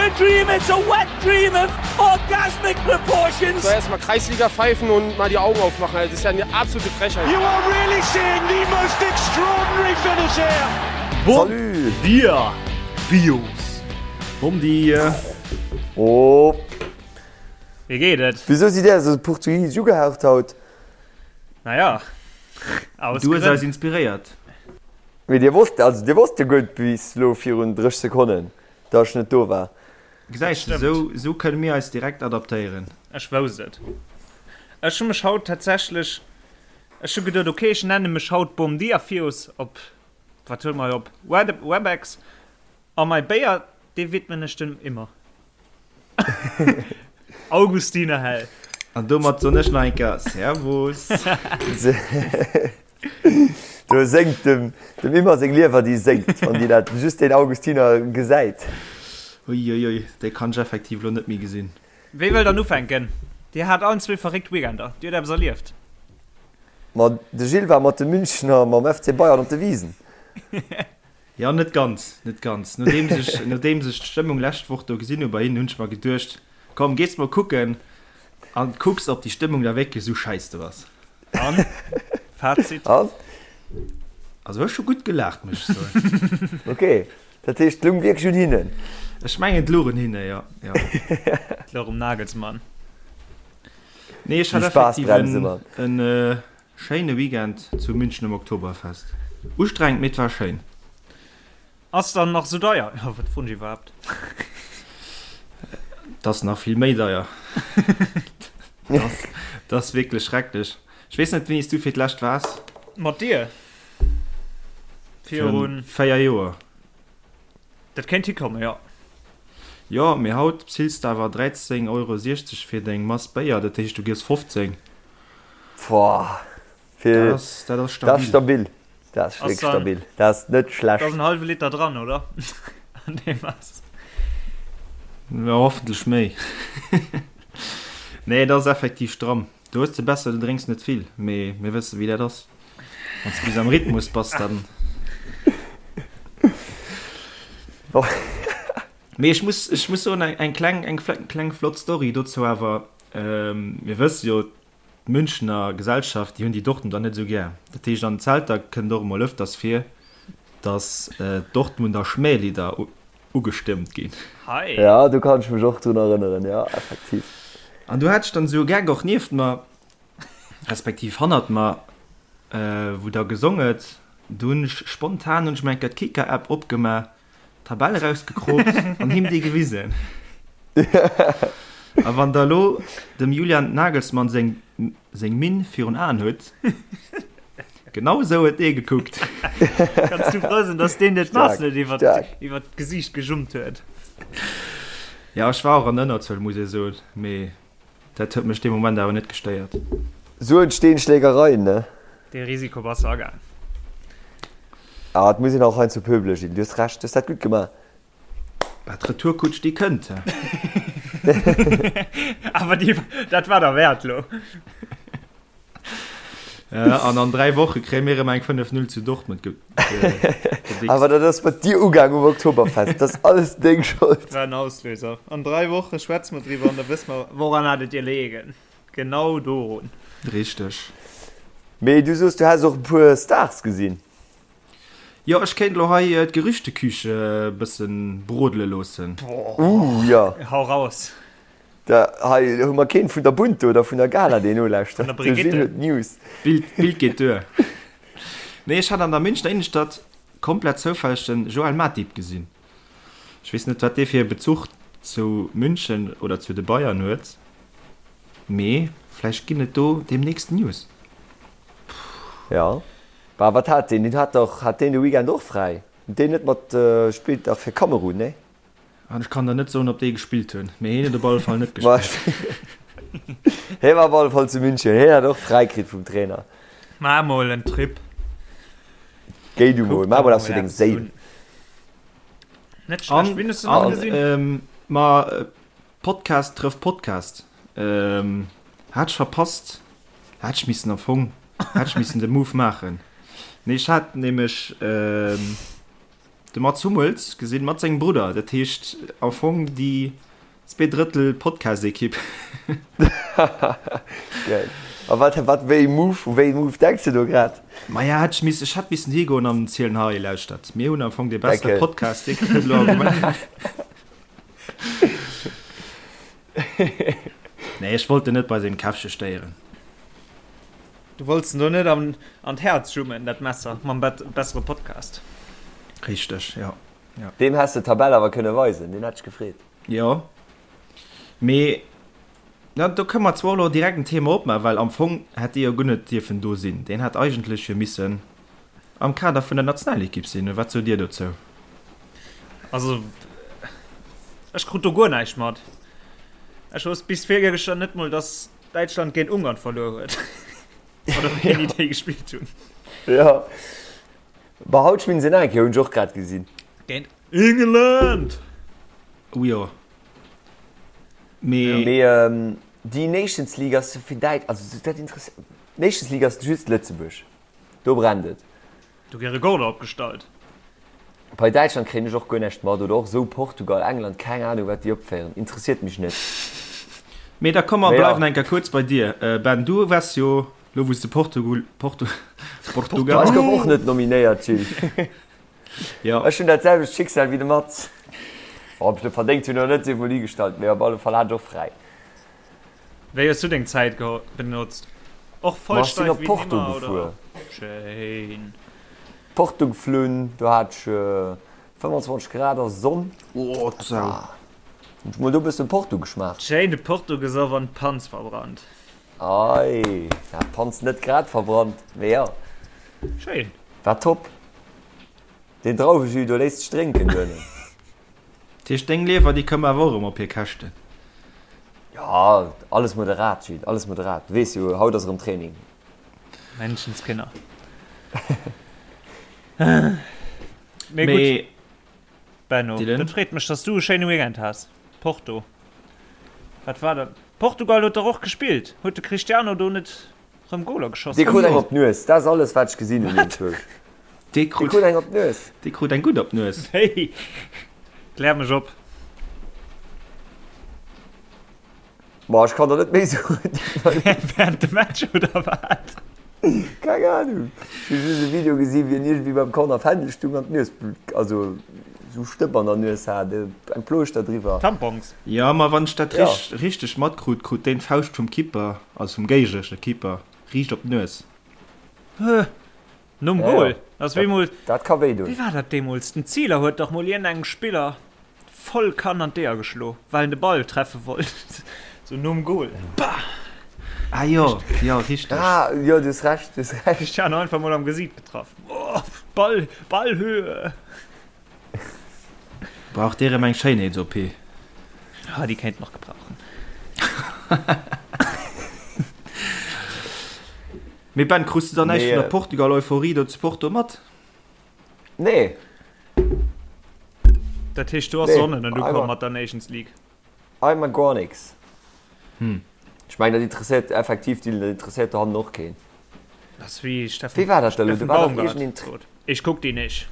a dream, it's a wet dream of orgasmic proportions. So erstmal Kreisliga pfeifen und mal die Augen aufmachen. Das ist ja eine absolute Frechheit. You are really seeing the most extraordinary finish here. Bon Salut! dia, Bios! Bom dia! Oh! Wéi geet et? Wisou sidd där esou portugisesch ugehaucht haut? Naja, aus Du hues Grënn. eis inspiréiert. Mee dir wosst, also dir wosst jo guer bis lo virun 30 Sekonnen, dass ech net do war. Gesäis de, sou, sou kënne mir eis direkt adaptéieren. Ech wousst et. Ech hu mech haut tatsächlech, ech hu geduet, ok, ech nenne mech haut Bom Dia Fios op, wat huele mer hei op, Webex. A mei Béier, dee widmen ech dem Immer. Augustiner Hell. An domat soen ech nach eng Kéier Servus. Do séngt dem dem Immer seng Liewer, déi séngt, wann déi dat just deen Augustiner gesäit. Uiuiui, déi kann ech effektiv elo net méi gesinn. Wee wëll dann ufänken? Dir hat allen zwee verréckt Weekender. Dir huet eppes erlieft. Ma de Gilles war mat de Münchner mam FC Bayern op de Wisen. Jo, net ganz, net ganz. Nodeems ech, nodeems ech d'Stëmmung lescht Woch do gesinn hu bei hinnen, hunn ech mer geduecht, komm, gees mol kucken an kucks, ob déi Stëmmung da wierklech esou schäiss do ass. An? Fazit? An? Also ech hu gutt gelaacht, muss ech soen. Ok, dat heescht, et lung wierklech un hinnen? Ech mengen, et louch un hinne, jo, jo. Et louch um Nagelsmann. Nee, ech hat Déi effektiv Spaassbremse, en, Mann. en Schéine Weekend zu München um Oktoberfest. Ustrengend, mee et war schéin. Ass dann nach sou deier? Jo, wat froen ech iwwerhaapt? Et ass nach vill méi deier. Et ass wierklech schrecklech. Ech weess net, wéini s du fir d'lescht waars. Mat dir? Virun. 4 Joer. Dat kéint hikommen, jo. Jo, mee haut bezills de awer 13,60 Euro fir deng Mass Béier, dat heescht du giess 15. Boah, fir, Dat ass, dat ass dat ass stabil. stabil. Dat ass Ass wierklech dann, stabil. Dat ass net da ass schlecht. en hallwe Liter dran, oder? An deem ass. Jo, hoffentlech méi. Nee, dat ass effektiv stramm. Do hues de besser, du drénks net vill, mee mir wësse wéi dat ass. Wann s de bis am Rhythmus bass, dann. Mee ech muss, ech muss soen, eng kleng, eng kleng flott Story dozou awer. Mir wësse jo, d'Münchener Gesellschaft, déi hunn déi Dortmunder net esou gär. Dat heescht, an den Zelter kënnt och emol ëfters vir, datt d'Dortmunder Schmählidder ugestëmmt ginn. Hei. Ja, do kann ech mech och drun erënneren, jo, effektiv. An du hat ech dann esou e Geck och nieft mer, respektiv hannert mer, wou da gesong huet. Du hunn ech spontan hunn ech mer eng Kéier d'Kicker-App opgemaach, d'Tabell erausgekroopt an him déi gewisen. A wann der elo dem Julian Nagelsmann seng seng Minn virun Aen hutt, genau esou huet dee gekuckt. Kanns du frou sinn, dass deen dir d'Mass Staark, net iwwer staark. iwwer d'Gesiicht gejummt huet. Ja, ech war och an Ënnerzuel, muss ee soen, mee dat huet mech dee Moment awer net gestéiert. Sou entstehen Schlägereien, ne? Dee Risiko bass de agaang. Ah, et muss een och heiansdo pöbele ginn. Du hues Recht, du hues dat gutt gemaach. Bah, d'Retourkutsch, déi kënnt, he. Awer déi, dat war derwäert lo. An an 3 Woche kréie mir erëm eng 5, 0 zu Dortmund ge, ge, gedickst. Awer dat ass mat dir ugaang um Oktoberfest. Dat ass alles deng Schold. War en Auslöser. An 3 Woche schwätze mer driwwer an da wësse mer, woran hat et dir leegen. Genau dorun. Richteg. Mee du soos, du häss och e puer Stars gesinn. Jo, ech kéint elo hei d'Gerüchteküche e bëssen brodele loossen. Ooh, jo. Hau raus. Da, hei hu mer keen vun der Bunte oder vun der Gala, deen nolauschtert. Vun der De Gilles Brigitte. huet d'News. D'Bild, d'Bild geet duer. Nee, ech hat an der Münchner Innenstadt komplett zoufälleg den Joël Matip gesinn. Ech weess net, wat dee fir e Bezuch zu München oder zu de Bayern huet, mee vläicht ginn et do deemnächst News. Jo. Bah, wat hat deen? Deen hat dach, hat deen de Weekend och fräi? Huet deen net mat, spillt dach fir Kamerun, nee? An ech kann der net soen, ob déi gespillt hunn, mee hien huet op alle Fall net gespillt. Hie war op alle Fall zu München, hien hat och fräi kritt vum Trainer. Maach mol en Trip. Géi du mol, maach mol eppes fir deng Séil. Net schlecht, wien hues du nach gesinn? Ma Podcast trëfft Podcast. Hat ech verpasst, hat ech missen am Fong, hat ech missen de Move maachen. Nee, ech hat nämlech. de Mats Hummels gesinn mat sengem Brudder. Dat heescht am Fong déi zweedrëttel Podcast-Ekipp. Geil. A wat, wat, wéi ee Move, u wéi ee Move denks de do grad? Maja, hätt ech missen, ech hätt missen higoen an zielen, hei, lauschtert, mir hunn am Fong dee bessere Podcast, dee kënnt elo Argument. Nee, ech wollt en net bei sengem Käffche stéieren. Du wollts en do net an, an d'Häerz jummen, dat Messer, mam bessere Podcast. Richteg, jo. Jo. Deem häss de d'Tabell awer kënne weisen, deen hätt sech gefreet. Jo, mee na, do kënne mer zwar elo direkt en Thema opmaachen, well am Fong hätt dee jo guer net dierfen do sinn. Deen hätt eigentlech jo missen am Kader vun der Nationalekipp sinn. Oder wat sot Dir dozou? Also, ech krut do guer näischt mat. Ech wousst bis virgëschter net mol, dass Däitschland géint Ungarn verluer huet. Oder wéini déi gespillt hunn. Jo. Bah, haut spillen se nach eng Kéier, hunn ech och grad gesinn. Géint England! Oh jo. Mee. Mee déi Nations League ass fir Däit, also dat interesséiert, Nations League ass just Lëtzebuerg. Do brennt et. Do gi Rekorder opgestallt. Bei Däitschland kréien ech och guer näischt mat, oder och esou Portugal, England, keng Ahnung wat déi opféieren, interesséiert mech net. Mee da komm mer bleiwen eng Kéier kuerz bei dir, Ben. Du waars jo lo wou s de Portugul, Portu, Portugal. Ech gouf och net nominéiert, Gilles. Jo. Ech hunn dat selwecht Schicksal wéi de Mats. Ob ech et verdéngt hunn oder net, sief mol higestallt, mee op alle Fall hat ech och fräi. Wéi hues du deng Zäit benotzt? Och voll steif wéi ech sinn op Porto gefuer. Schéin. Porto geflunn, do hat ech 25 Grad a Sonn. Oh d'Sau. Hunn ech mol do bëssen Porto geschmaacht. Schéin de Porto gesoff an d'Panz verbrannt. Ei, ja d'Panz net grad verbrannt, mee jo. Schéin. War top. Deen Drauwejus do léisst sech drénken duerno. Dat heescht deng Liewer déi koum awer och erëm op hir Käschten? Jo, alles moderat Gilles, alles moderat. Du weess jo, haut ass erëm Training. Menschenskinner. Mee gutt, Benno, dat freet mech, dass du e schéine Weekend has. Porto, wat war dat? Portugal huet dach och gespillt. Huet de Cristiano do net Rëm Goler geschoss. Dee krut eng op d'Nues, dat ass alles wat ech gesinn hunn enzwousch. Dee krut eng op d'Nues. Dee krut eng gutt op d'Nues. Hey, klär mech op. Ma ech kann der net méi soen. Während dem Match oder wat? Keng Ahnung. Ech hu just e Video gesinn, wéi en iergendwéi beim Corner Fändel stung an d'Nues, also sou Stëpp an der Nues hat, eng Plooschter driwwer. Tampons. Jo, ma wann ech dat richteg matkrut, krut deen d'Fauscht vum Keeper. Also vum géigneresche Keeper riicht op d'Nues. Huh, nom Goal. Ass wéi mol. Dat ka wéi doen. Wéi war dat deemools? Den Zieler huet dach mol iergendengem Spiller voll Kann an d'Eeër geschlo, well en de Ball treffe wollt. Sou nom Goal. Bah! Ah jo, jo, richteg. Ah jo, du hues Recht, du hues Recht. Cristiano einfach mol am Gesiit getraff. Oh, Ball, Ballhöhe! Brauch dee rem eng Schéinheets-OP? Ah, déi kéint en nach gebrauchen. Mee Ben, krus de dann näischt vun der Portugal-Euphorie do zu Porto mat? Nee. Dat heescht, do ass Sonne net ukomm mat der Nations League? Einmal gar nix. Ech mengen, dat interesséiert effektiv, Dylan, dat interesséiert dohannen och keen. Dat ass wéi Steffen, Wéi war dat da elo? Do war dach iergendeen. Ich guck die nicht.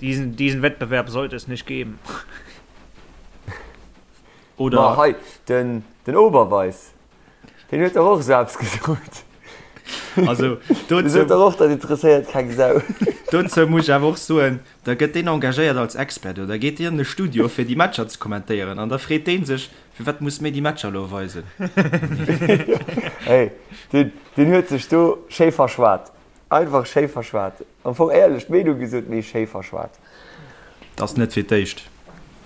Diesen, diesen Wettbewerb sollte es nicht geben. Oder. Ma hei, den, den Oberweis, deen huet dach och esou eppes gesot. Also, dozou. Dee sot dach och, dat interesséiert keng Sau. Dozou muss ech awer och soen, da gëtt deen engagéiert als Expert oder geet deen an de Studio, fir déi Matcher ze kommentéieren an da freet dee sech, Firwat muss mir déi Matcher elo weisen? Hey, deen, deen huet sech do schéi verschwat. Einfach schéi verschwat. Am Fong éierlech d'Meenung gesot, mee schéi verschwat. 't ass net fir d'éischt,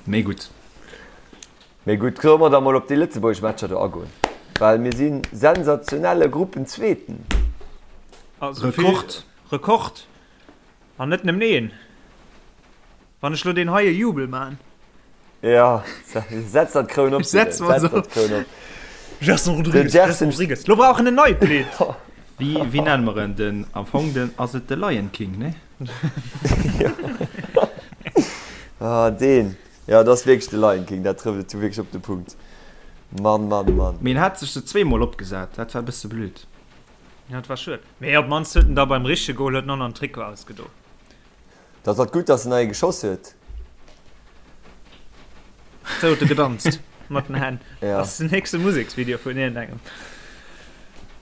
mee gutt. Mee gutt, solle mer da mol op déi lëtzebuergesch Matcher do agoen, well mir si sensationelle Gruppenzweeten. Also vill Rekord! Rekord! An net nëmmen een. Wann ech lo deen heie Jubel maan. Jo, setz der d'Kroun op. Setz mer se op. Gerson Rodrigues, Gerson Rodrigues. Lo brauch en en neit Lidd. Wéi, wéi nenne mer en? Den, am Fong den, ass et de Lion King, ne? Ah, deen. Jo, dat ass wierklech de Lion King, dat trëfft et wierklech op de Punkt. Mann, Mann, Mann. Mee en hat sech se zweemol opgesat, dat war e bësse blöd. Ja, dat war schued. Mee op d'mannst huet en da beim richtege Goal huet en och nach den Trikot ausgedo. Dat ass gutt, dass en nach ee geschoss huet. Sou huet e gedanzt mat den Hänn. Ja. Dat ass den nächste Museksvideo vun iergendengem.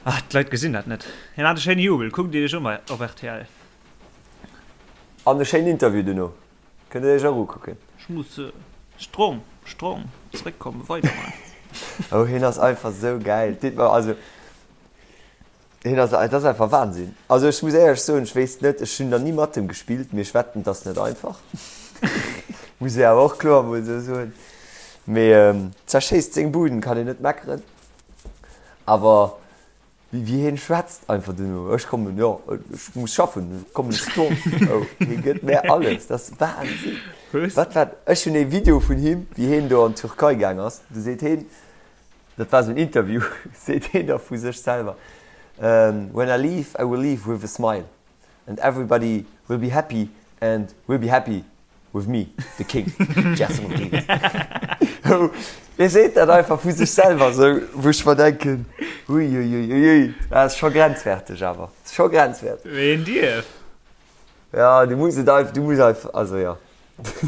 Ah, d'Leit gesinn dat net. Hien hat e schéine Jubel. Kuckt Iech un bei op rtl. An e schéinen Interview duerno. Kënnt Dir Iech och ukucken. Ech muss strong, strong zréckkommen, weiderman. Oh, hien ass einfach sou gäil. Deet mer also. Hien ass, et ass einfach Wahnsinn. Also ech muss éierlech soen, ech wéisst net, ech hunn nach ni mat em gespillt, mee ech wetten, et ass net einfach. Muss ee awer och kloer emol esou soen. Mee zerschéisst seng Buden, kann een net meckeren. Awer wéi wéi hien schwätzt einfach duerno, ech kommen, jo, ech muss schaffen, ech kommen strong. Oh, hie gëtt mär alles, dat ass Wahnsinn. Wat war, ech hunn ee Video vun him, wéi hien do an d'Türkei gaang ass, do seet hien, Dat war esou en Interview, seet hien da vu sech selwer, When I leave, I will leave with a smile and everybody will be happy and will be happy with me, the king, Gerson Rodrigues. Hie seet dat einfach vu sech selwer esou, wou ech mer denken, Uiuiuiui, dat ass scho grenzwäerteg awer, scho grenzwäerteg. Wéi een dierf. Ja, du muss et einfach, du muss einfach, also ja.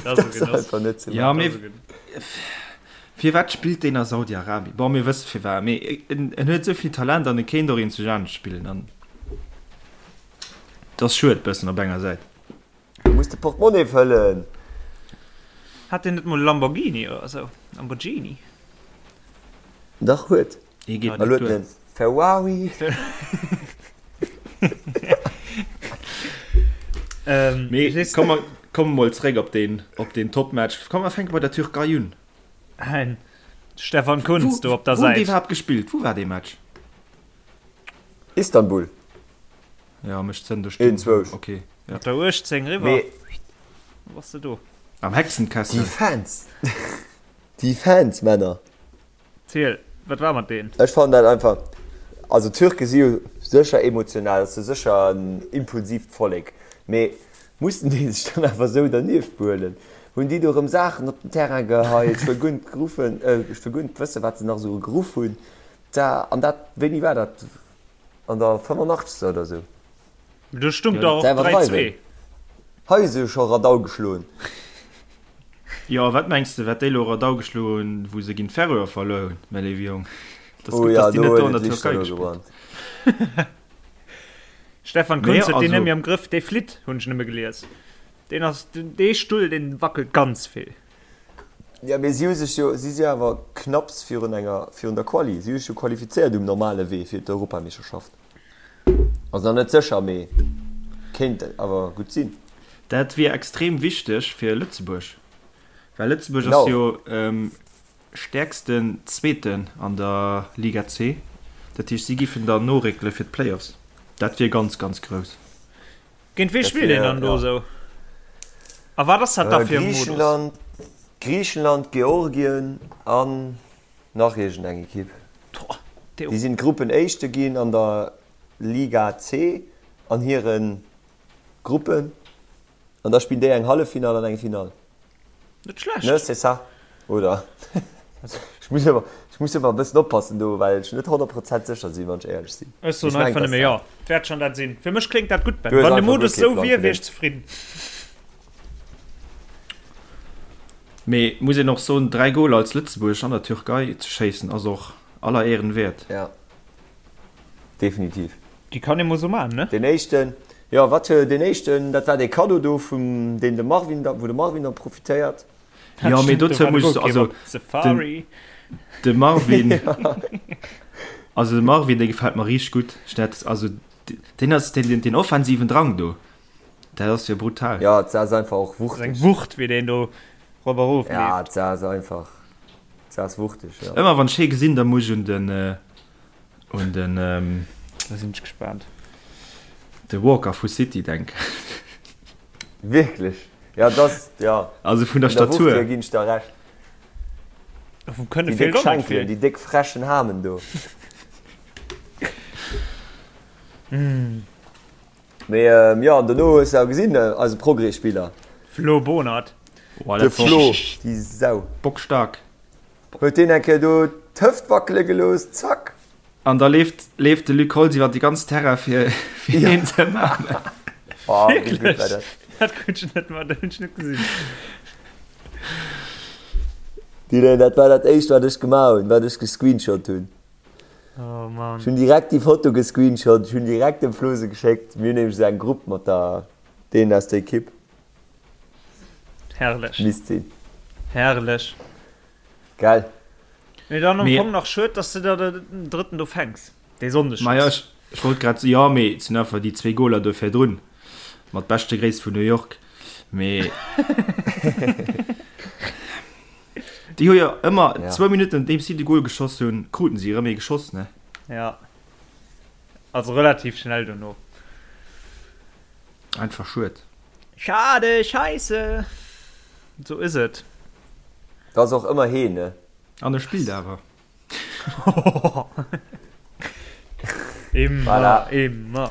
Dat ass einfach net ze Ja, mee firwat spillt deen a Saudi-Arabien? Bon, mir wësse firwat, mee en, en huet esou vill Talent an e kéint och eenzeg anescht spillen an et ass schued bëssen op enger Säit. Du muss de Portemonnaie fëllen. Hat deen net mol e Lamborghini oder esou? Lamborghini? Dach huet. Hie geet net duer. Ferrari. Mee komm mer komme mol zréck op deen, op deen Topmatch. Komm mer fänke bei der Türkei un. Ein Stefan Kuntz do op der Wou hunn déi Säit. iwwerhaapt gespillt? Wou war dee Match? Istanbul. Ja, mech zënn do stinn. Een, zwousch. Okay, ja. Mat der 18 eriwwer. Mee Wou bass de do? Am déi Hexenkessel. Fans. Déi Fans, Männer. Ziel, wat war mat deen? Ech fannen dat einfach, also d'Türke si jo sécher emotional, ass jo sécher en impulsiivt Vollek, mee mussen déi sech dann awer esou dernieft behuelen? Hunn déi do erëm Saachen op den Terrain geheit, ech wëll guer net geruffen, ech wëll guer net wëssen, wat se nach esou geruff hunn, da, an dat, wéini war dat, an der 85. oder esou? Do stung der och 3, 2. Hei si scho Radau geschloen. Jo, wat mengs de, wat déi elo Radau geschloen hunn, wou se géint d'Färöer verluer hunn, mäi léiwe Jong? Et ass Oh gutt, ja, dass déi do net do huet an et der Lichter Türkei do gespillt gebrannt. Stefan Mee Kuntz huet deen also. net méi am Grëff, dee flitt, hunn ech nëmme gelies. Deen ass, dee Stull, dee wackelt ganz vill. Ja, mee si hu sech jo, si si awer knapps virun enger, virun der Quali. Si hu sech jo qualifizéiert um normale Wee fir d'Europameeschterschaft. Ass nach net sécher, mee kéint awer gutt sinn. Dat wier extrem wichteg fir Lëtzebuerg, well Lëtzebuerg ass jo stäerksten Zweeten an der Liga C. Dat heescht, si giffen dann noréckele fir d'Playoffs. Dat wier ganz, ganz grouss. Géint wee spillt een dann do esou? A wat ass dat da fir e Modus? Griichenland, Griichenland, Georgien an Nach iergend eng Ekipp. Déi sinn Gruppenéischte ginn an der Liga C an hire Gruppen. An da spillen déi eng Halleffinall an eng Finall. Net schlecht. Ne, c'est ça, oder? Ech muss ëmmer, ech muss ëmmer e bëssen oppassen do, well ech net 100 Prozent sécher sinn, wann ech éierlech sinn. Ech soen einfach nëmme jo. Et wäert schonn dat sinn. Fir mech kléngt dat gutt, Ben. Wann de Modus esou wier, wier ech zefridden. Mee muss een och soen, 3 Goler als Lëtzebuerg an der Türkei ze schéissen ass och aller Ehren wäert. Ja, definitiv. Déi kann ee mol sou man, ne? Deen éischten, jo wat, deen éischten, dat war dee Kaddo do vum deen de Marvin da, wou de Marvin da profitéiert. Jo, mee dozou muss ech soen, also den, de Marvin, also de Marvin dee gefält mer richteg gutt. Ech dat, also deen ass deen, deen offensiven Drang do. Dat ass jo brutal. Ja, et ass einfach och wuchtig. Eng Wucht, wéi deen do rop a rof leeft. Ja, et ass einfach, et ass wuchtig, ja. Ëmmer wann ech hee gesinn, da muss ech un den, un den. Da sinn ech gespaant. De Walker vu City denken. Wierklech? Ja, et ass, ja. Also vun der Statur. Vun der Wucht hier ginn ech der Recht. Vum Kënne Déi feelt déck och net Schenkelen, vill. déi déck frechen Hamen do. Mee jo, an dono hues de awer gesinn, eise Progrès-Spiller. Flo Bonert. De Flo, déi Sau. Bockstark. Huet deen eng Kéier do d'Hëft wackele gelooss, zack. An da leeft, leeft de Luc Holtz iwwer de ganzen Terrain fir, fir hien ze ëmarmen. Oh, wéi gutt war dat? Dat krut ech net mat, dat hunn ech net gesinn. Dylan, dat war dat éischt wat ech gemaach hunn, wat ech gescreenshot hunn. Oh Mann. Ech hunn direkt déi Foto gescreenshot, ech hunn direkt dem Flo se geschéckt. Mir hunn nämlech esou eng Grupp mat der deenen aus der Ekipp. Herrlech. Misst sinn. Herrlech. Gell? Mee dann am Fong nach schued, dass de der den drëtten do fänks. Dee Sonndeg. Maja, ech, ech wollt grad, jo, mee et sinn einfach déi zwee Goler do virdrun. Mat beschte Gréiss vun New York. Mee déi hu jo ëmmer Ja. zwou Minutten nodeems si de Gol geschoss hunn, kruten si erëm ee geschoss, ne? Ja. Also relativ schnell dono. Einfach schued. Schade, scheisse. Sou is et. Dat ass och ëmmer heen, ne? An e spillt awer. Immer, Voilà. immer.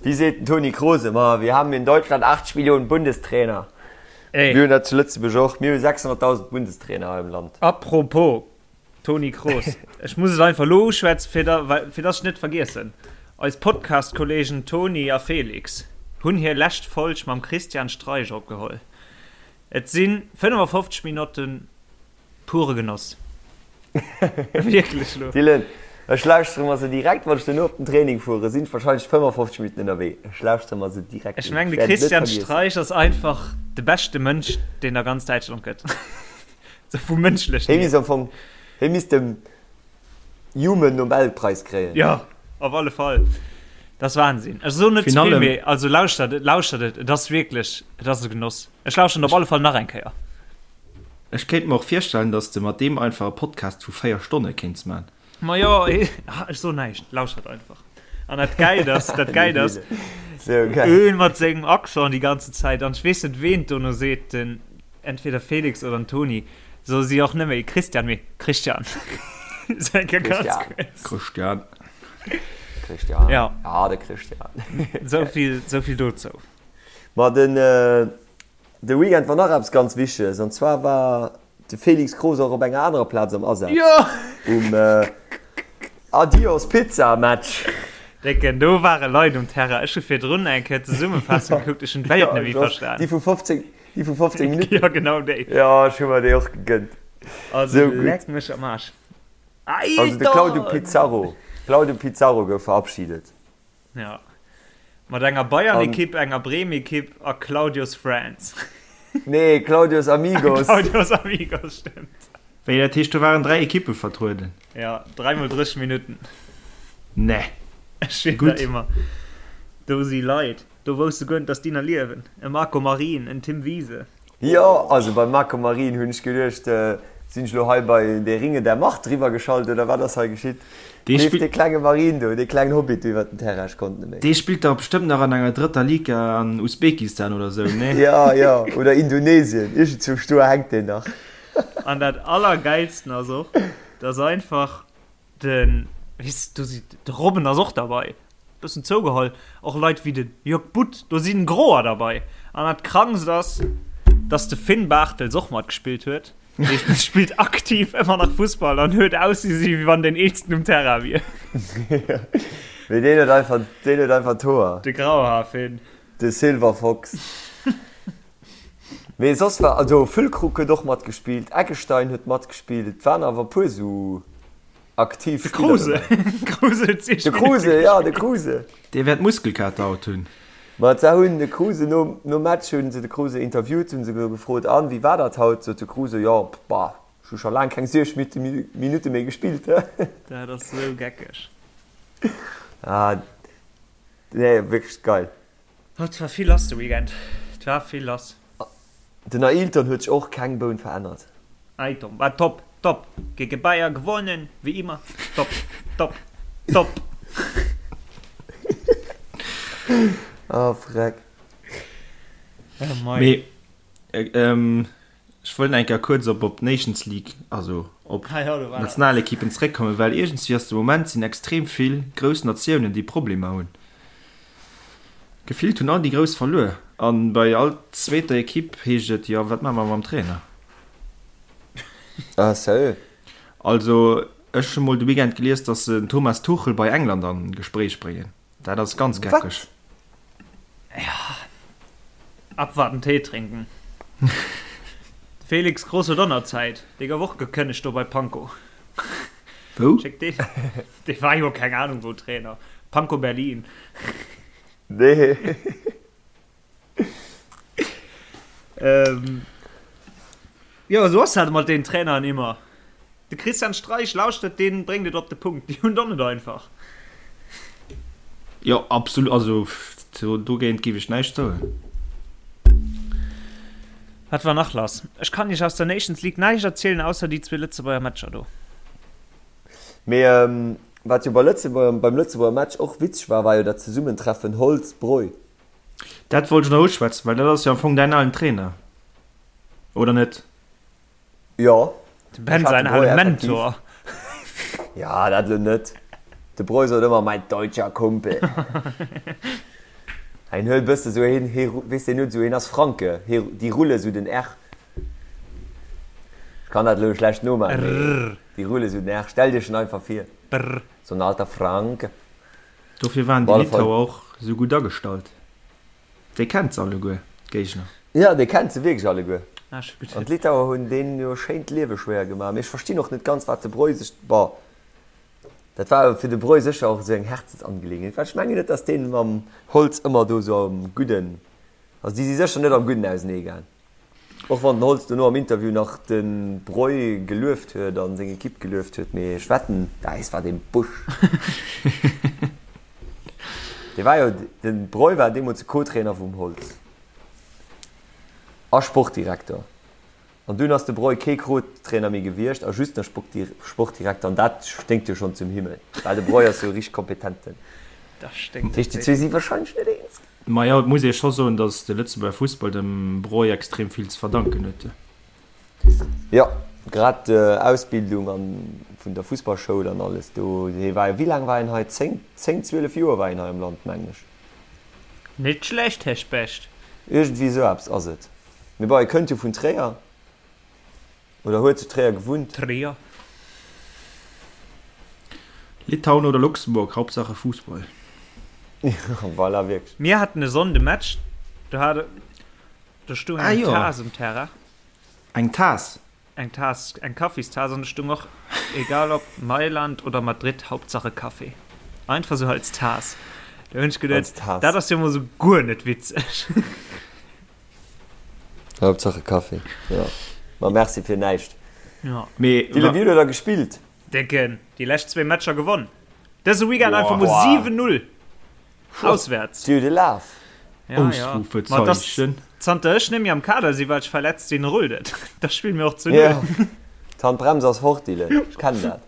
Wéi seet den Toni Kroos ëmmer, Wir haben in Deutschland 80 Millionen Bundestrainer. Ey. Mir hunn dat zu Lëtzebuerg och. Mir hu 600.000 Bundestrainer hei am Land. Apropos Toni Kroos, ech muss et einfach elo uschwätzen, fir da, well, fir dass ech net vergiessen. Eis Podcast-Kollegen Toni a Felix hunn hir lescht Folg mam Christian Streich opgeholl. Et si 55 Minotten Pure Genoss. Wierklech lo. Dylan, ech lauschtere mer se direkt, wann ech duerno op den Training fuere, sinn ech wahrscheinlech 55 Minutten ënnerwee. Ech lauschtere mer se direkt Ech un. mengen, de Ech wäert et net Christian vergiessen. Streich ass einfach de beschte Mënsch, deen a ganz Däitschland gëtt. Sou vum Mënschlechen Hie hier. misst am Fong, hie misst dem Human Nobelpreis kréien. Jo, op alle Fall. Dat ass Wahnsinn. Ech soen net ze Virun vill, allem. mee also lauschtert et, lauschtert et. Et ass wierklech, et ass e Genoss. Ech lauschteren op alle Fall nach eng Kéier. Ech kéint mer och virstellen, dass de mat deem einfach e Podcast vu 4 Stonne kéints man. Ma jo, ech soen näischt, lauschtert einfach. An dat Gäilt ass, dat Gäilt ass, Sou geil. en mat sengem Accent déi ganze Zäit, an ech weess net ween dono seet, den entweder Felix oder den Toni, soe si och net méi Christian, mee Christian. Sou eng Kéier ganz Christian. kuerz. Christian. Christian. Ja. Ah, de Christian. Sou vill, sou vill dozou. Ma den, De Weekend war nach eppes ganz Wichteges, an zwar war de Felix Kroos och op enger anerer Plaz am Asaz, um Adios Pizza Match. Décken, do ware Leit um Terrain. Ech hu virdrun eng Kéier d'Zesummefassung gekuckt, ech hunn d'Welt net méi verstan. Déi vu 15, déi vu 15 Minutten? Jo, genau déi. Jo, ech hu mer déi och gegënnt. Also Sou gutt. leck mech am Aarsch. Also de Claudio Pizarro, Claudio Pizarro gouf verabschiedet. Ja. Mat enger Bayern-Ekipp, enger Bremen-Ekipp a Claudios Friends. Nee, Claudios Amigos. Claudios Amigos, stimmt. Wéi, dat heescht do waren 3 Ekippe vertrueden? Ja, 3 mol 30 Minutten. Nee. Ech schwier der immer. Do si Leit, do wousst du guer net, dass déi nach liewen. E Marco Marin, en Tim Wiese. Jo, also beim Marco Marin hunn ech geduecht, sinn ech lo hei bei Der Ringe der Macht driwwer geschalt oder wat ass hei geschitt? Dee Leeft spillt. dee klenge Marin do, dee klengen Hobbit do iwwert den Terrain, ech konnt net méi. Dee spillt dach bestëmmt nach an enger drëtter Liga an Usbekistan oder sou, nee? Jo, jo, oder Indonesien, iergendzwousch do hänkt deen nach. An dat allergeilsten ass och, dass einfach Den, weess du, si, de Robben ass och derbei, bëssen zougeholl, och Leit wéi de Jörg Butt, do sinn Groer derbei. An dat Krankst ass, dass de Finn Bartels och matgespillt huet. Dee spillt aktiv ëmmer nach Fussball an huet ausgesi wéi wann deen eelsten um Terrain wier. Mee deen huet einfach, deen huet einfach d'Hoer. De Grauhaar-Finn. De Silver Fox. Mee soss war, also Füllkrug huet och matgespillt, Eggestein huet matgespillt, et waren awer e puer sou aktiv De Spiller Kruse. dobäi. Kruse huet 6 De Minutte Kruse, ja, de gespillt. Kruse. Dee wäert Muskelkater haut hunn. Ma se hunn de Kruse nom, nom Match hunn se de Kruse interviewt, hunn se gefrot, An, wéi war dat haut? Sot de Kruse, Jo, bah, ech hu scho laang keng 60 Minutte méi gespillt. Dat ass sou geckeg. Ah, nee, wierklech geil. Oh, et war vill lass de Weekend. Et war vill lass. Den Ailton huet sech och keng Boun verännert. Ailton war top, top. Gegen Bayer gewonnen, wéi immer. Top, top, top. Oh freck. Oh mei. Mee ech wollt nach eng Kéier kuerz op op d'Nations League, also op Ah jo, do war dat. d'Nationalekippen zeréckkommen, well iergendswéi ass de Moment sinn extrem vill grouss Natiounen, déi Problemer hunn. Gefillt hunn all déi Grouss verluer an bei all zweeter Ekipp heescht et, jo wat maache mer mam Trainer? Ah sérieux? Also ech hu mol de Weekend gelies, datt se den Thomas Tuchel bei England an Gespréich bréngen. Dat ass ganz geckeg. Wat? Ja. Abwarten, Tee trinken. Felix Groß huet och nach Zäit. Dee gouf och gekënnegt do bei Pankow. Wou? Schéck dee. Dee war jo keng Ahnung wou Trainer. Pankow Berlin. Nee. Ähm, jo, esou ass dat mat den Traineren immer. De Christian Streich lauschtert, deen bréngt et op de Punkt. Déi hunn et och net einfach. Jo, absolut. Also dogéint géif ech näischt soen. Wat war nach lass? Ech kann iech aus der Nations League näischt erzielen, ausser déi zwee Lëtzebuerger Matcher do. Mee wat jo bei Lëtzebuerger, beim Lëtzebuerger Match och witzeg war, war jo dat Zesummentreffen Holtz-Breu. Dat wollt ech nach uschwätzen, well dat ass jo am Fong däin alen Trainer, oder net? Jo. Dem Ben säin ale Mentor. Ja, dat elo net. De Breu sot ëmmer, mein deutscher Kumpel. Hien huet e bësse sou, hien, hie, weess deen huet esou, hien ass Franke, hie, déi rulle sou den R. Ech kann dat elo schlecht nomaachen, mee déi rulle sou den R. Stell dir en einfach vir. Brr. So en alter Franke. Dofir waren déi Litauer och esou gutt agestallt. Dee kennt se alleguer, d'Géigner. Jo, dee kennt se wierklech alleguer. An d'Litauer hunn deenen jo schéin d'Liewe schwéier gemaach. Mee ech verstinn och net ganz, wat de Breu sech, bon, dat war fir de Breu sécher och esou eng Herzensangelegenheet, well ech mengen net, datt deen mam Holtz ëmmer do esou am Gudden, also déi si sécher net am Gudden ausenee gaang. Och wann den Holtz dono am Interview nach de Breu gelueft huet a seng Ekipp gelueft huet, mee ech wetten, däis war dee Busch. Dee war jo, de Breu war deemools de Co-Trainer vum Holtz a Sportdirekter. An dunn ass de Breu kee Co-Trainer méi gewiescht a just nach Sportdirekter an dat sténkt jo schonn zum Himmel, well de Breu ass jo e richteg kompetenten. Dat sténkt Dat heescht, déi zwee si warscheinlech net eens. Majo, et muss ee scho soen, datt de Lëtzebuerger Fussball dem Breu extrem vill ze verdanken huet. Jo, grad d'Ausbildung an vun der Fussballschoul an alles do. Hie war jo, wéi laang war hien hei? 10, 10, 12 Joer war hien hei am Land, mengen ech. Net schlecht, Här Specht. Iergendwéi esou eppes ass et. Mee bon, hie kënnt jo vun Tréier. Oder huet zu Tréier gewunnt. Tréier. Litauen oder Luxemburg, Hauptsache Fußball. Voilà, wierklech. Mir haten e Sonnde Match, do hat do stung Ah eng jo. Taass um Terrain. Eng Taass? Eng Taass, eng Kaffistaass an do stung och, egal ob Mailand oder Madrid, Hauptsache Kaffee. Einfach sou als Taass. Do hunn ech geduet, Als Taass. dat ass jo mol sou guer net witzeg. Hauptsache Kaffee, jo. Ma merci fir näischt. Ja. Mee Dylan, wéi huet der da gespillt? Décken, déi lescht zwee Matcher gewonn. Dëse Weekend einfach mol 7-0 auswäerts. Déi huet e Laf. Ja, ja. Ma et ass, Ausrufezeichen. zanter ech net méi am Kader sinn, well ech verletzt sinn, rullt et. Da spille mir och zu Null. Ja. D'Handbrems ass fort, Dylan. Ech kennen dat.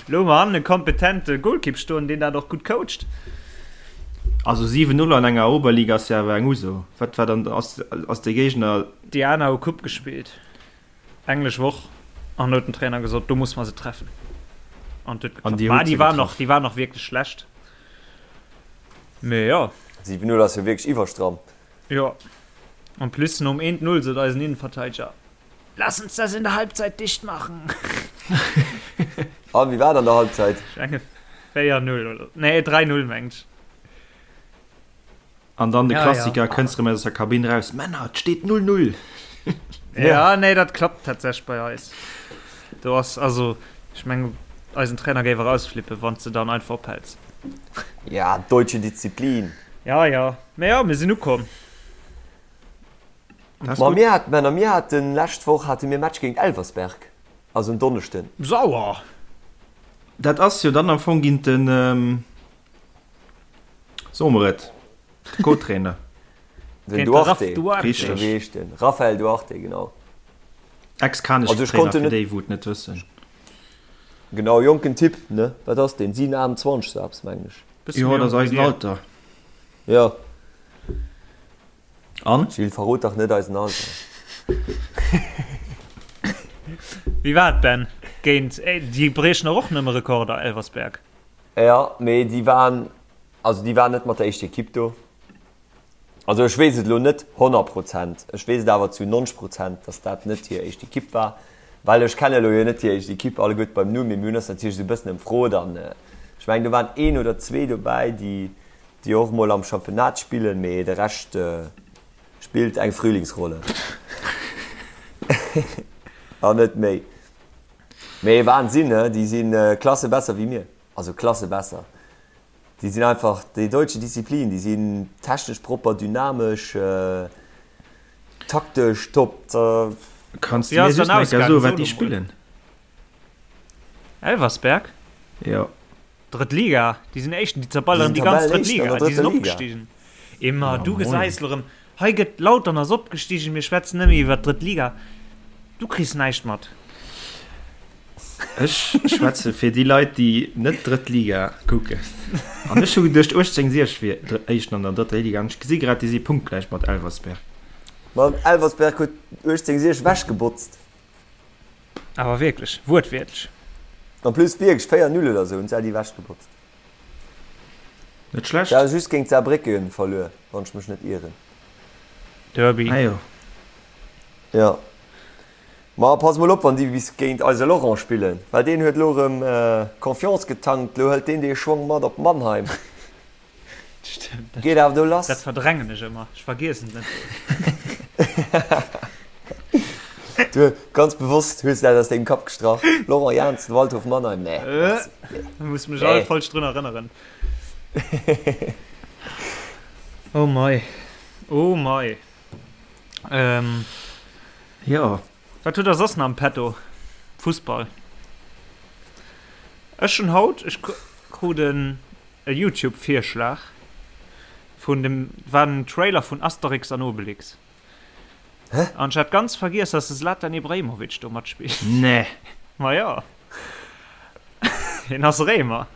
Lo hu mer hannen e kompetente Golkipp stoen, deen dat och gutt coacht. Also 7, 0 an enger Oberliga ass jo awer eng Uso. Wat war dann, ass, ass de Géigner. Déi aner hu Coupe gespillt, englesch Woch, an huet den Trainer gesot, do muss mer se treffen. An et huet An geklappt. Dir Ma hutt déi se waren och, getraff. déi waren och wierklech schlecht. Mee jo. 7, 0 ass jo wierklech iwwerstramm. Jo. En plus nom 1, 0 sot eisen Innenverteideger, Lass uns das in der Halbzeit dicht machen. An, wéi war et an der Halbzeit? Ech menge 4-0 oder, nee 3-0 mengt ech. An dann de Ja, Klassiker, ja. kënns rëm aus der Kabinn raus, Männer, et steet 0-0! Ja, nee, dat klappt tatsächlech bei eis. Do ass, also, ech mengen, eisen Trainer géif erausflippen, wann s de dann einfach ophäls. Ja, deutsche Disziplin. Ja, ja. Mee jo, mir sinn ukomm. Ma mir haten, Männer, mir haten lescht Woch hate mir Match géint Elversberg, also en Donneschden. Sauer! Dat ass jo dann am Fong géint den, soe mer et, de Co-Trainer. Den Géint de Raf Duarte. Duarte. Richteg. Wéi heescht den? Raphael Duarte, genau. Ex-Kanech Trainer, fir déi wou et net wëssen. Genau, jonken Typ, ne? Wat ass deen? 7, 28 sou eppes, mengen ech. Bësse Jo, méi dat ass jonk wéi eisen dir. Alter. Jo. An? Gilles, verrot dach net eisen Alter. Wéi war et, Ben? Géint, déi briechen och nëmme Rekorder, Elversberg. Jo, mee déi waren, also déi waren net mat der éischter Ekipp do. Also ech weess et elo net 100 Prozent, ech weess et awer zu 90 Prozent, datt dat net hir éischt Ekipp war, well ech kenne elo jo net hir éischt Ekipp alleguerte beim Numm, mee mir hunn eis natierlech esou e bëssen ëmfrot an ech mengen do waren een oder zwee dobäi, déi. Déi och mol am Championnat spillen, mee de Rescht spillt eng Frühlingsrolle. An net méi. Mee Wahnsinn, ne? Déi si Klasse besser wéi mir. Also Klasse besser. Déi sinn einfach déi deutsche Disziplin, déi sinn technesch propper, dynamesch, taktesch top. Kanns du mir just nach eng Kéier soen, wat déi spillen? Elversberg? Jo. Drëtt Liga, déi sinn Éischten, déi zerballeren déi ganz drëtt Liga, déi sinn opgestigen. Emma, du gesäis lo rëm, hei gëtt Lautern ass opgestigen, mir schwätzen nëmme iwwer d'drëtt Liga, du kriss näischt mat. Ech schwätze fir déi Leit, déi net drëtt Liga kucken. An ech hu geduecht 1860 wier Éischten an der drëtter Liga an ech gesi grad, déi si punktgläich mat Elversberg. Ma Elversberg huet 1860 ewechgebotzt. Awer wierklech, wuertwiertlech. En plus wierklech 4, 0 oder sou hunn se déi ewech gebotzt. Net schlecht. Se hu just géint Saarbrécken verluer, wann ech mech net ieren. Derby. Ah jo. Jo. Ma pass mol op, wann déi bis géint eise Laurent spillen, well deen huet elo erëm Confiance getankt, elo hëlt deen dee Schwong mat op Mannheim. Stimmt. Dat, Geet awer do lass. Dat verdrängen ech ëmmer. Ech vergiessen et. Du, ganz bewosst hues du dat aus dengem Kapp gestrach. Laurent Jans, Waldhof Mannheim, nee. Äh, muss mech all falsch drun erënneren. Oh mei. Oh mei. Ähm. Jo. Wat hutt der soss nach am Petto? Fussball. Ech hunn haut, ech krut en E Youtube Virschlag vun dem war den Trailer vun Asterix an Obelix. Hä? An ech hat ganz vergiess dass de Zlatan Ibrahimovic do matspillt. Nee. Ma jo. Hien ass Réimer.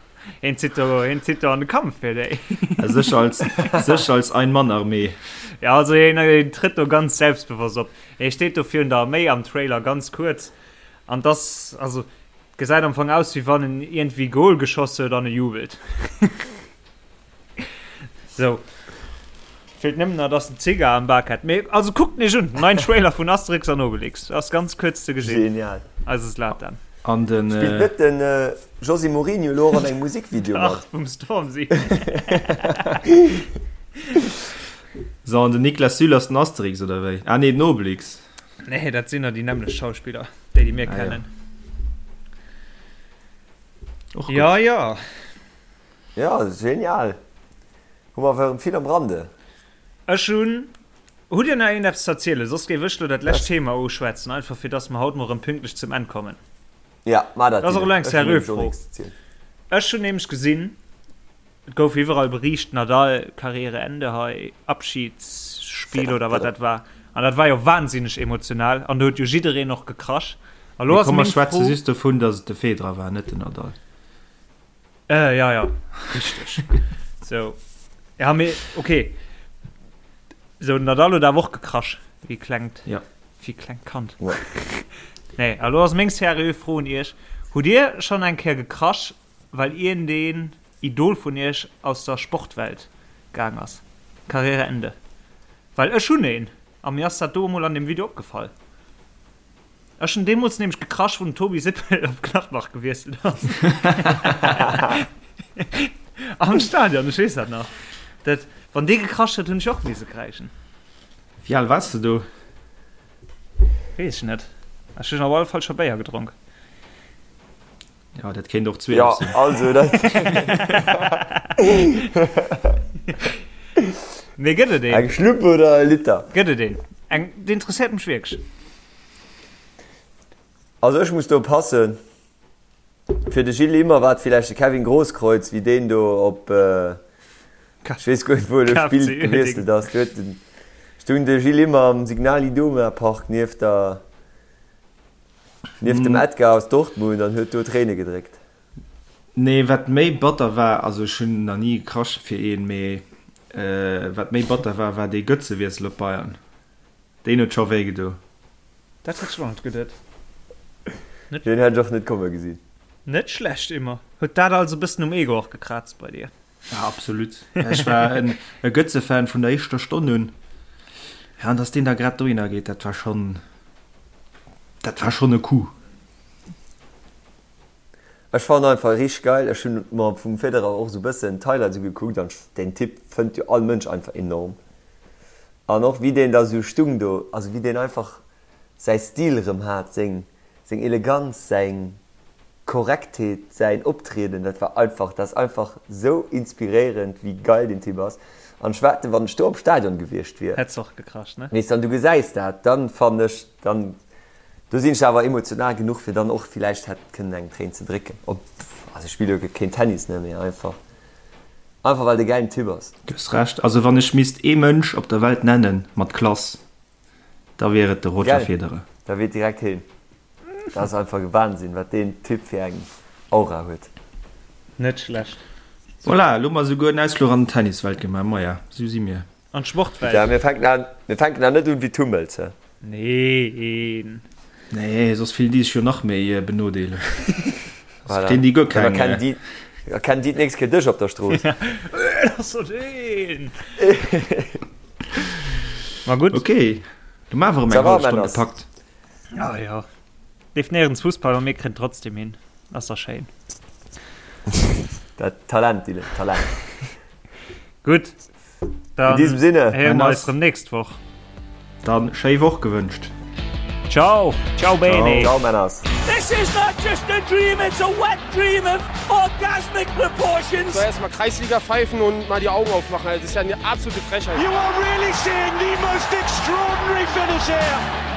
Hien zitt do, hien zitt do an de Kampf fir déi. Sech als, sech als Ein-Mann-Armee. Ja, also hien, hien trëtt do ganz selbstbewosst op. Hie steet do virun der Arméi am Trailer ganz kuerz. An dass, also Gesäit am Fong aus wéi wann en iergendwéi Goal geschoss huet an e jubelt. Sou. Feelt nëmmen nach dass en Zigar am Bak hätt. Mee also kuckt en iech un, den neien Trailer vun Asterix an Obelix ass ganz kuerz ze gesinn. Genial. Eise Zlatan. An den. Spillt net den José Mourinho elo och an engem Musikvideo mat? Dach, vum Stormzy. So, an den Niklas Süle ass den Asterix oder wéi? Ah nee, den Obelix. Nee, dat sinn der déi nämmlecht Schauspiller, déi déi mir Ah, ja. kennen. Och gutt. Ja, ja. Ja, genial. Hu mer awer vill am Rande. Ech hunn. Hutt Dir nach iergendeppes ze erzielen? Soss géif ech lo dat lescht Thema uschwätzen, einfach fir dass mer haut mol erëm pünktlech zum Enn kommen. Ja, mar dat. Dat ass och elo eng Ech hunn seriö nämlech och Fro. nächst ze zielen. Ech hunn nämlech gesinn, Et gouf iwwerall beriicht, Nadal, Karriereende hei, Abschiedsspiel oder wat dat war. An dat war jo wahnsinneg emotional an do huet jo jiddereen och gekrasch. A lo Mee ass komm, mer meng schwätze Fro. just dovun, datt et de Federer war, net den Nadal. Äh, ja, ja, richteg. Sou, ja, mee okay. Sou, den Nadal huet awer och gekrasch, wéi klengt, Ja. wéi klengt Kand. Ja. Nee, a lo ass meng seriö Fro un iech, Hutt Dir schonn eng Kéier gekrasch, well iergendeen Idol vun iech aus der Sportwelt gaang ass? Karriereende. Well ech hunn een, a mir ass dat do emol an deem Video opgefall. Ech hunn deemools nämlech gekrasch, wou den Tobi Sippel op Gladbach gewiesselt ass. Am Stadion, ech weess dat nach. Dat, wann dee gekrasch huet, hunn ech och misse kräischen. Wéi al waars de do? Weess ech net. Ech hunn op alle Fall scho Béier gedronk. Ja, dat kéint och 12 Ja, sinn. also dat. Mee gëtt et een? Eng Schlupp oder e Liter? Gëtt et een? Eng, dat interesséiert mech wierklech. Also ech muss do passen. Fir de Gilles Immer war et villäicht de Kevin Grosskreutz, wéi deen do op, ech weess guer net wou e lo KFC spillt, gewiesselt ass. Do huet den, stoung de Gilles Immer am Signal Iduna Park nieft der, Nieft dem Edgar aus Dortmund an huet do Tréine gedréckt. Nee, wat méi batter war, also ech hunn nach ni gekrasch fir een, mee wat méi batter war, war dee Götze-Wiessel op Bayern. Deen huet scho wéi gedo. Dat hätt ech och net geduet. Deen hätt ech och net komme gesinn. Net schlecht, Immer. Huet dat also e bëssen um Ego och gekraazt bei dir? Ja, absolut. Ech war en e Götze-Fan vun der éischter Stonn un. Ja, an dass deen da grad dohinner geet, dat war schonn, dat war schonn e Coup. Ech fannen einfach richteg geil. Ech hunn mer vum Federer och esou bëssen d'Highlights ugekuckt an deen Typ fënnt jo all Mënsch einfach enorm. An och wéi deen da sou stung do, also wéi deen einfach säi Stil erëm hat, seng seng Eleganz, säin Korrektheet, säin Optrieden, dat war einfach, dat ass einfach sou inspiréierend wéi geil deen Typ ass. An ech wetten, wann ech do am Stadion gewiescht wier, Hätt's och gekracht, ne? weess, an du gesäis dat, dann fannen ech, dann Do sinn ech awer emotional genuch fir dann och villäicht hätt kënnen eng Tréin ze drécken. Ob, also ech spille jo keen Tennis ne, mee einfach einfach well de gäilen Typ ass. Du hues Recht, also wann ech misst ee Mënsch op der Welt nennen mat Klass, da wier et de Roger Gell, Federer. da wier et direkt heen. Dat ass einfach e Wahnsinn wat deen Typ fir eng Aura huet. Net schlecht. Voilà, elo hu mer esouguer en Ausfluch an d'Tenniswelt gemaach. Maja, esou si mir. An d'Sportwelt. Ja, mir fänken an, mir fänken an net un wéi d'Hummels, he? Neen. Nee, soss fillen déi sech jo nach méi benodeelegt. Soss Voilà. kréien déi guer Dann keng. erkennen déi, erkennen déi d'nächst Kéier dech op der Strooss. Dat ass doch deen! Ma gutt. Okay, du hu mer awer erëm Ça eng va, hallef Stonn Männers? gepackt. Ah jo. Leeft néierens Fussball, ma mir kréien trotzdem hin. Ass dach schéin. Dat Talent, Dylan, Talent. Gutt, In diesem Sinne. héiere mer eis rëm nächst Woch. Dann schéi Woch gewënscht. Ciao, ciao bene. Ciao Männers. This is not just a dream, it's a wet dream of orgasmic proportions. So erstmal Kreisliga pfeifen und mal die Augen aufmachen. Also, das ist ja eine absolute Frechheit. You are really seeing the most extraordinary finish here.